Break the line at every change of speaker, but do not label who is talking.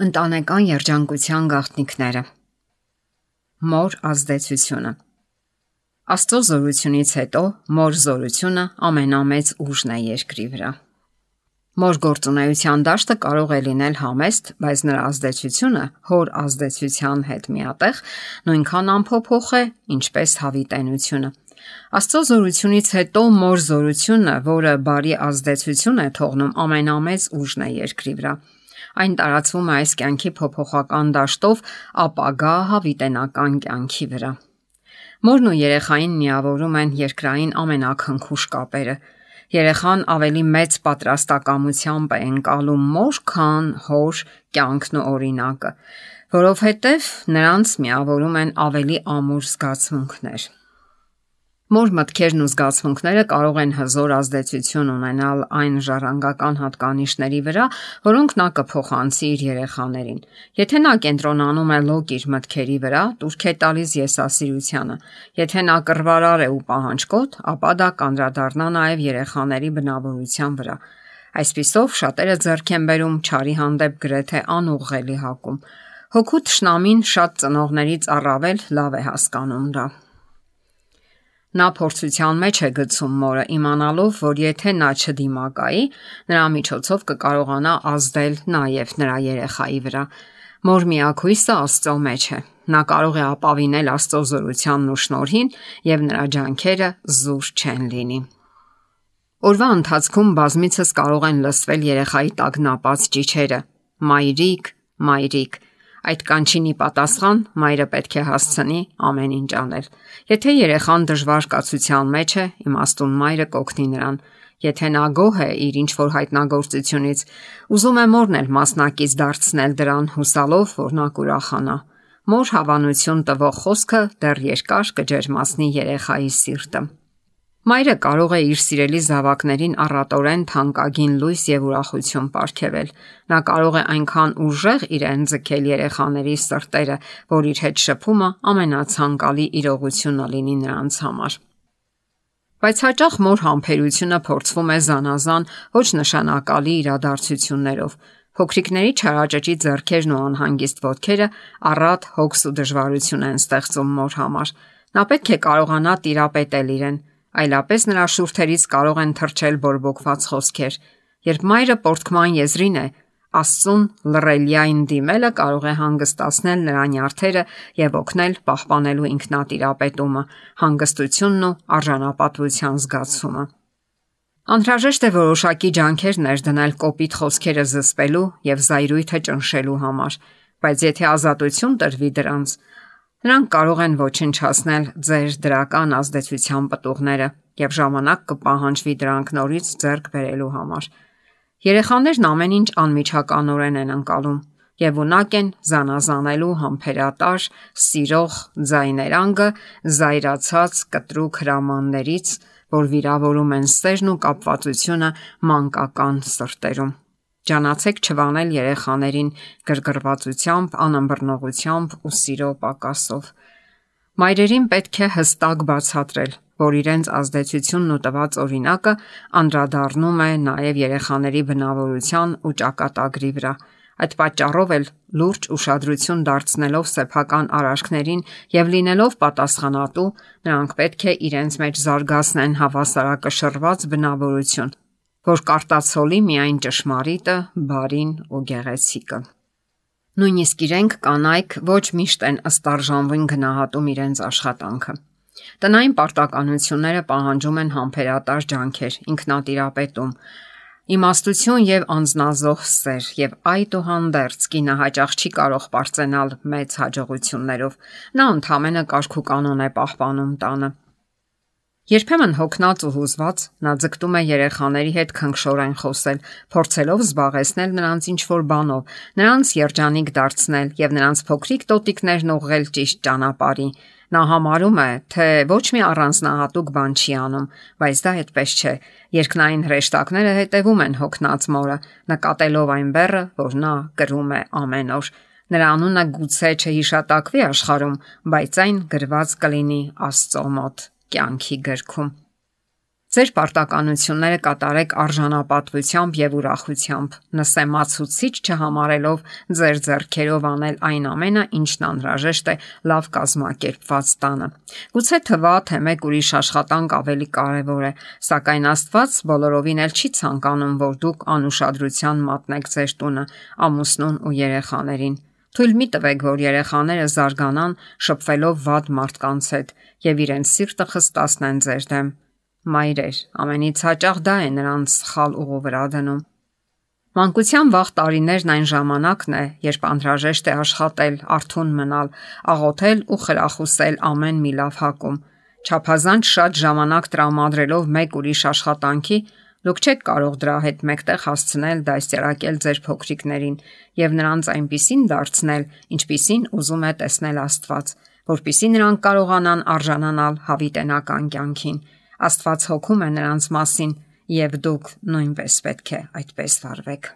Ընտանեկան երջանկության գաղտնիքները։ Մոր ազդեցությունը։ Աստծո զորությունից հետո մոր զորությունը ամենամեծ ուժն է երկրի վրա։ Մոր գործունեության դաշտը կարող է լինել համեստ, բայց նրա ազդեցությունը հոր ազդեցության հետ միատեղ նույնքան անփոփոխ է, ինչպես հավիտենությունը։ Աստծո զորությունից հետո մոր զորությունը, որը բարի ազդեցություն է թողնում, ամենամեծ ուժն է երկրի վրա։ Այն տարածվում է այս կյանքի փոփոխական դաշտով ապագա հավիտենական կյանքի վրա։ Մորն ու երեխային միավորում են երկրային ամենաքնքուշ կապերը։ Երեխան ավելի մեծ պատրաստակամությամբ է ընկալում մոր, քան հոր կյանքն ու օրինակը, որովհետև նրանց միավորում են ավելի ամուր զգացմունքներ։ Մոր մտքերն ու զգացմունքները կարող են հզոր ազդեցություն ունենալ այն ժառանգական հատկանիշների վրա, որոնք նա կփոխանցի իր երեխաներին։ Եթե նա կենտրոնանում է լոկ իր մտքերի վրա, տուրք է տալիս եսասիրությանը։ Եթե նա կռվարար է ու պահանջկոտ, ապա դա կանդրադառնա նաև երեխաների բնավորության վրա։ Այսպիսով շատերը ձեռք են բերում չարի հանդեպ գրեթե անուղղելի հակում։ Հոգու թշնամին շատ ծնողներից առավել լավ է հասկանում դա։ Նա փորձության մեջ է գցում մորը, իմանալով, որ եթե նա չդիմակայի, նրա միջոցով կկարողանա ազդել նաև նրա երեխայի վրա։ Մոր միակույսը Աստծո մեջ է։ Նա կարող է ապավինել Աստծո զորությանն ու շնորհին, եւ նրա ջանքերը զուր չեն լինի։ Օրվա ընթացքում բազմիցս կարող են լսվել երեխայի տագնապած ճիչերը. «Մայրիկ, մայրիկ»։ Այդ կանչինի պատասխան մայրը պետք է հասցնի ամեն ինչ անել։ Եթե երեխան դժվար կացության մեջ է, իմաստուն մայրը կօգնի նրան։ Եթե նա գոհ է իր ինչ-որ հայտնագործությունից, ուզում է մորն էլ մասնակից դարձնել դրան, հուսալով, որ նա կուրախանա։ Մոր հավանություն տվող խոսքը դեռ երկար կջերմացնի երեխայի սիրտը։ Մայրը կարող է իր սիրելի զավակներին առատորեն թանկագին լույս եւ ուրախություն պարգևել։ Նա կարող է այնքան ուժեղ իրեն ձգել երեխաների սրտերը, որ իր հետ շփումը ամենացանկալի իրողությունը լինի նրանց համար։ Բայց հաճախ մոր համբերությունը փորձվում է զանազան ոչ նշանակալի իրադարձություններով։ Փոքրիկների չարաճճի ձեռքերն ու անհանգիստ ոտքերը առատ հոգս ու դժվարություն են ստեղծում մոր համար։ Նա պետք է կարողանա տիրապետել իրեն, այլապես նրա շուրթերից կարող են թռչել բորբոքված խոսքեր։ Երբ մայրը պոռթկման եզրին է, Աստծուն լռելիային դիմելը կարող է հանգստացնել նրա նյարդերը եւ օգնել պահպանելու ինքնատիրապետումը, հանգստությունն ու արժանապատվության զգացումը։ Անհրաժեշտ է որոշակի ջանքեր ներդնել կոպիտ խոսքերը զսպելու եւ զայրույթը ճնշելու համար, բայց եթե ազատություն տրվի դրանց, նրանք կարող են ոչնչացնել ձեր դրական ազդեցության պտուղները եւ ժամանակ կպահանջվի դրանք նորից ձեռք բերելու համար։ Երեխաներն ամեն ինչ անմիջականորեն են ընկալում եւ ունակ են զանազանելու համբերատար, սիրող ձայներանգը զայրացած կտրուկ հրամաններից, որ վիրավորում են սերն ու կապվածությունը մանկական սրտերում։ Ջանացեք չվանել երեխաներին գրգռվածությամբ, անըմբռնողությամբ ու սիրո պակասով։ Մայրերին պետք է հստակ բացատրել, որ իրենց ազդեցությունն ու տված օրինակը անդրադառնում է նաև երեխաների բնավորության ու ճակատագրի վրա։ Այդ պատճառով էլ լուրջ ուշադրություն դարձնելով սեփական արարքներին եւ լինելով պատասխանատու, նրանք պետք է իրենց մեջ զարգացնեն հավասարակշռված բնավորություն, որ կարտացոլի միայն ճշմարիտը, բարին ու գեղեցիկը։ Նույնիսկ իրենք կանայք ոչ միշտ են ըստարժանվին գնահատում իրենց աշխատանքը։ Տնային պարտականությունները պահանջում են համբերատար ջանքեր, ինքնատիրապետում, իմաստություն եւ անznազող սեր, եւ այդուհանդերձ կինը հաճախ չի կարող պարծենալ մեծ հաջողություններով։ Նա ընդհանրապես կարգ ու կանոն է պահպանում տանը։ Երբեմն հոգնած ու հուզված նա ձգտում է երեխաների հետ քնքշորեն խոսել, փորձելով զբաղեցնել նրանց ինչ-որ բանով, նրանց երջանիկ դարձնել եւ նրանց փոքրիկ տոտիկներն ուղղել ճիշտ ճանապարհի։ Նա համարում է, թե ոչ մի առանձնահատուկ բան չի անում, բայց դա այդպես չէ։ Երկնային հրեշտակները հետևում են հոգնած մորը, նկատելով այն բեռը, որ նա կրում է ամեն օր։ Նրա անունը գուցե չհիշատակվի աշխարհում, բայց այն գրված կլինի Աստծո մոտ կյանքի գրքում։ Ձեր պարտականությունները կատարեք արժանապատվությամբ եւ ուրախությամբ, նսեմացուցիչ չհամարելով ձեր ձեռքերով անել այն ամենը, ինչն անհրաժեշտ է լավ կազմակերպված տանը։ Գուցե թվա, թե մեկ ուրիշ աշխատանք ավելի կարևոր է, սակայն Աստված բոլորովին էլ չի ցանկանում, որ դուք անուշադրության մատնեք ձեր տունը, ամուսնուն ու երեխաներին։ Թույլ մի տվեք, որ երեխաները զարգանան շփվելով վատ մարդկանց հետ եւ իրենց սիրտը խստացնեն ձեր դեմ։ Մայրեր, ամենից հաճախ դա է նրանց սխալ ուղու վրա դնում։ Մանկության վաղ տարիներն այն ժամանակն է, երբ անհրաժեշտ է աշխատել, արթուն մնալ, աղոթել ու խրախուսել ամեն մի լավ հակում։ Չափազանց շատ ժամանակ տրամադրելով մեկ ուրիշ աշխատանքի, դուք չեք կարող դրա հետ մեկտեղ հասցնել դաստիարակել ձեր փոքրիկներին եւ նրանց այնպիսին դարձնել, ինչպիսին ուզում է տեսնել Աստված, որpիսի նրանք կարողանան արժանանալ հավիտենական կյանքին։ Աստված հոգում է նրանց մասին, եւ դուք նույնպես պետք է այդպես վարվեք։